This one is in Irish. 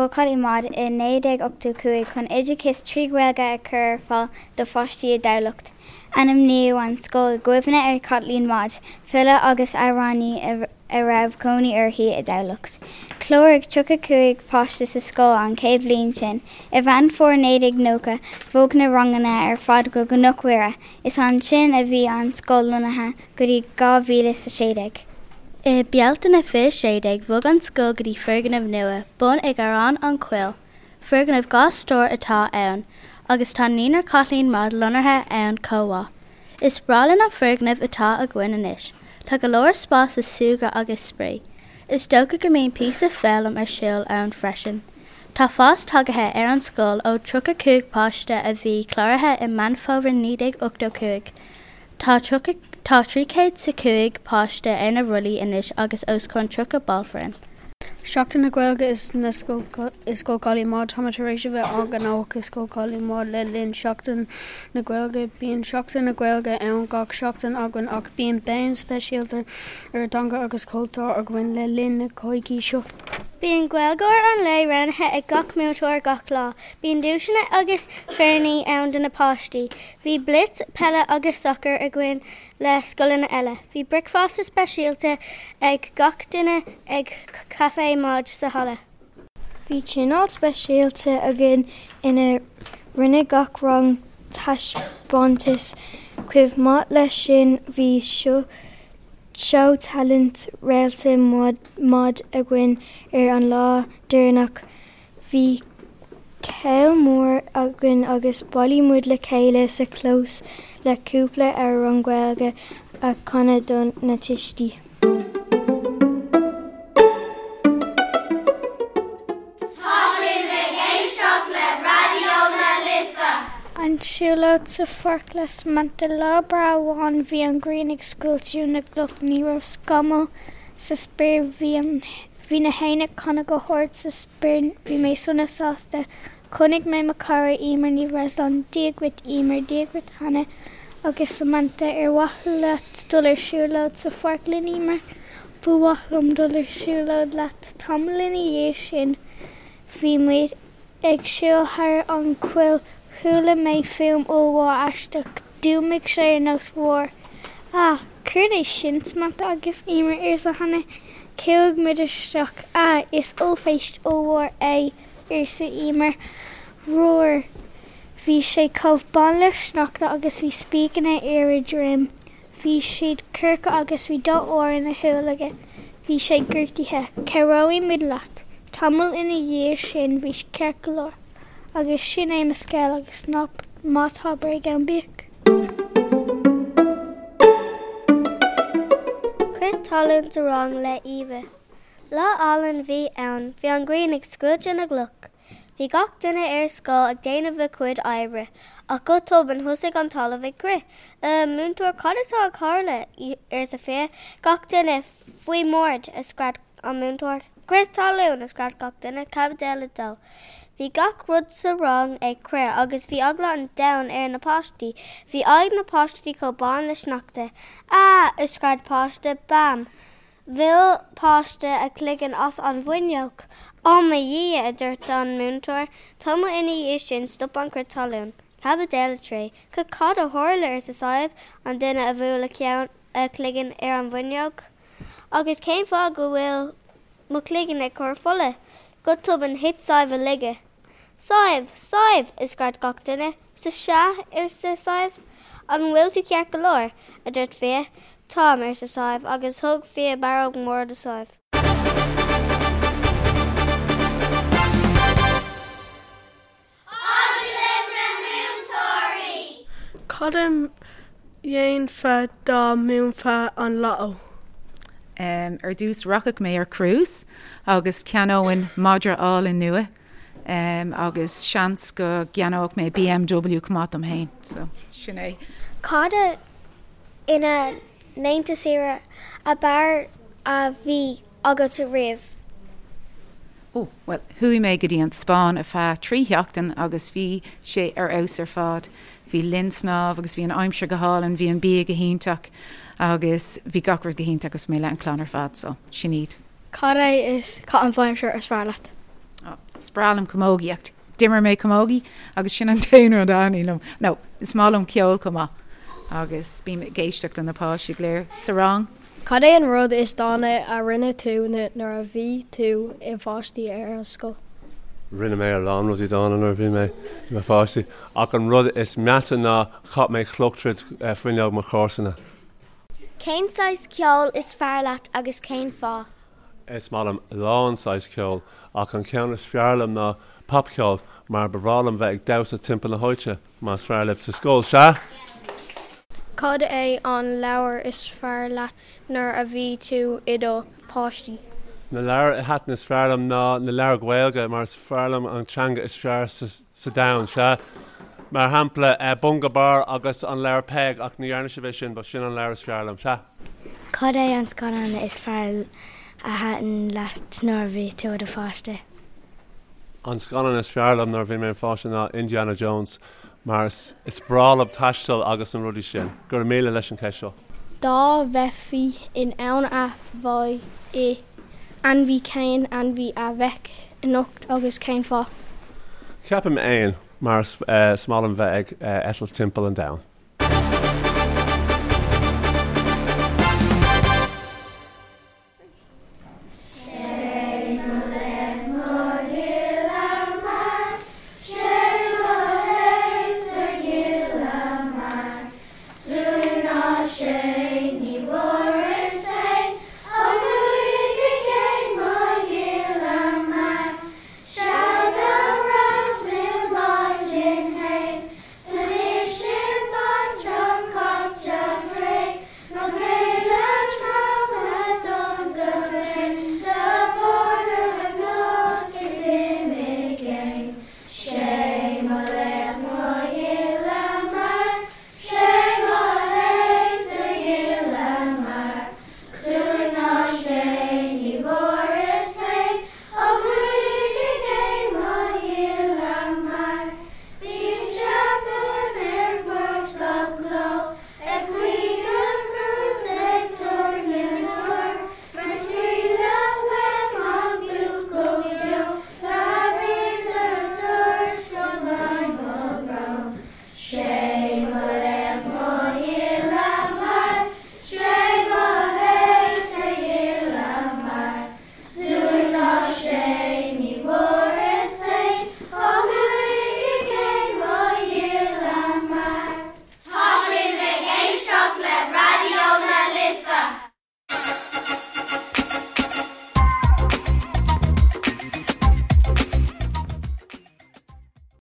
Scoil Chaitlín Maude i 1985 chun oideachas 3 Ghaeilge a chur ar fáil do pháistí i dTamhlacht. Ainmníodh an scoil i gcuimhne ar Chaitlín Maude, file agus amhránaí a raibh cónaí uirthi i dTamhlacht. Chláraigh 35 páiste sa scoil an chéad bhliain sin. I Mheán Fómhair 1990, bhog na ranganna ar fad go Cnoc Mhuire. Is ansin a bhí an scoil lonnaithe go dtí 2016. I Bealtaine 2016, bhog an scoil go dtí foirgneamh nua, bun ag Garrán an Choill. Foirgneamh 2 stór atá ann, agus tá Naíonra Chaitlín Maude lonnaithe ann chomh maith. Is breá linn an foirgneamh atá againn anois. Tá go leor spás le súgradh agus spraoi. Is dócha go mbíonn píosa foghlaim ar siúl ann freisin. Tá fás tagaithe ar an scoil ó 35 páiste a bhí cláraithe i Meán Fómhair 1985. Tá tá 305 páiste ar na rollaí anois agus os cionn 30 ball foireann. Seachtain na Gaeilge i Scoil Chaitlín Maude Táimid tar éis a bheith an-ghnóthach i Scoil Chaitlín Maude le linn Seachtain na Gaeilge. Bíonn Seachtain na Gaeilge ann gach seachtain againn ach bíonn béim speisialta ar an dteanga agus cultúr againn le linn na coicíse seo. Bíonn Gaeilgeoir an lae roghnaithe ag gach múinteoir gach lá. Bíonn duaiseanna agus féiríní ann do na páistí. Bhí blitz peile agus sacair againn le scoileanna eile. Bhí bricfeasta speisialta ag gach duine ag Café Maude sa halla. Bhí tionól speisialta againn ina rinne gach rang taispeántas. Chomh maith leis sin bhí seó talent Réalta Maude againn ar an lá deireanach. Bhí céilí mór againn agus bhailigh muid le chéile sa chlós le cúpla amhrán Gaeilge a chanadh do na tuistí. Tá sibh ag éisteacht le Raidió na Life! An tsiúlóid sa pháirc le Samantha Lá breá amháin bhí an ghrian ag scoilteadh na gcloch ní raibh scamall sa spéir bhí an Bhí na héin ag canadh go hard sa spéir Bhí mé sona sásta. Chonaic mé mo chara Emer Ní Bhreisleáin Dia dhuit Emer, Dia dhuit Hannah agus Samantha Ar mhaith leat dul ar siúlóid sa pháirc linn Emer? Ba mhaith liom dul ar siúlóid leat. Tamall ina dhiaidh sin bhí muid Ag siúl thar an choill chuala mé fuaim ollmhór aisteach. D'fhuaimnigh sé ar nós roar. Ah! Céard é sin, Samantha agus Emer, arsa Hannah. Chuaigh muid isteach. Ah! Is ollphéist ollmhór é, arsa Emer. Roar! Bhí sé chomh bán le sneachta agus bhí spíceanna ar a dhroim. Bhí siad corcra agus bhí dath óir ina shúil aige. Bhí sé gortaithe. Cabhróidh muid leat. Tamall ina dhiaidh sin bhí sé ceart go leor. Agus sin é mo scéal agus ná tá bréag ann bíodh. Crith talún sa rang le Eva. Lá álainn a bhí ann, bhí an ghrian ag scoilteadh na gcloch. Bhí gach duine ar scoil ag déanamh a cuid oibre, ach go tobann thosaigh an talamh ag crith. A, múinteoir, cad atá ag tarlú? arsa Fia. Gach duine, faoin mbord! a scread an múinteoir. Crith talún! a scread gach duine. Caibidil 2. Bhí gach rud sa rang ag crith agus bhí eagla an domhain ar na páistí. Bhí aghaidh na páistí chomh bán le sneachta. A! a scread páiste. Bam! Bhuail páiste a chloigeann as an bhfuinneog. Ó mo Dhia! a dúirt an múinteoir. Tamall ina dhiaidh sin stop an crith talún. Caibidil 3. C-cad a tharla? arsa Sadhbh, an duine a bhuail a ceann, a cloigeann ar an bhfuinneog. Agus cén fáth go bhfuil mo chloigeann ag cur fola? Go tobann thit Sadhbh i laige. Sadhbh! Sadhbh! a scread gach duine. S-sea? arsa Sadhbh. An bhfuil tú ceart go leor? a dúirt Fia. Táim, arsa Sadhbh, agus thug Fia barróg mhór do Sadhbh. Agallamh na Múinteoirí! Cad a dhéanfá dá mbuafá an Lotto? Ar dtús rachadh mé ar cruise agus cheannóinn madra álainn nua agus seans go gceannódh mé BMW chomh maith dom féin. So sin é. Cad é an laethanta saoire ab fhearr a bhí agat riamh? Ó, bhuel, chuaigh mé go dtí an Spáinn ar feadh 3 sheachtain agus bhí sé ar fheabhas ar fad. Bhí linn snámh agus bhí an aimsir go hálainn, bhí an bia go hiontach agus bhí gach rud go hiontach agus mé le an clann ar fad, so sin iad. Cad é is caitheamh aimsire is fearr leat? Is breá liom camógaíocht. D'imir mé camógaí agus sin an t-aon rud a thaitníonn liom. No, is maith liom ceol chomh maith agus bím ag éisteacht le na páistí go léir sa rang. Cad é an rud is dána a rinne tú nuair a bhí tú i pháistí ar an scoil? Rinne mé a lán rudaí dána nuair a bhí mé i mo pháistí ach an rud is measa ná chaith mé cloch tríd fuinneog mo chomharsana. Cén saghas ceoil is fearr leat agus cén fáth? Is maith liom a lán saghas ceoil ach an ceann is fearr liom ná popcheol mar ba bhreá liom bheith ag damhsa timpeall na háite, más fearr libh sa scoil, sea? Cad é an leabhar is fearr leat nuair a bhí tú i do pháistí? Na leabhair a thaitin is fearr liom ná na leabhair Ghaeilge mar is fearr liom an teanga is fearr sa domhan, sea. Mar shampla, Bunga Bar agus an leabhar Peig ach ní dhearna sibh é sin but sin an leabhar is fearr liom, sea. Cad é an scannán is fearr a thaitin leat nuair a bhí tú i do pháiste? An scannán is fearr liom nuair a bhí mé i mo pháiste ná Indiana Jones mar is breá liom taisteal agus na rudaí sin. Go raibh míle leis an cheist seo. Dá mbeifí in ann a bheith i ainmhí cén ainmhí a bheadh ionat agus cén fáth? Ceapaim éan mar is maith liom bheith ag eitilt timpeall an domhain.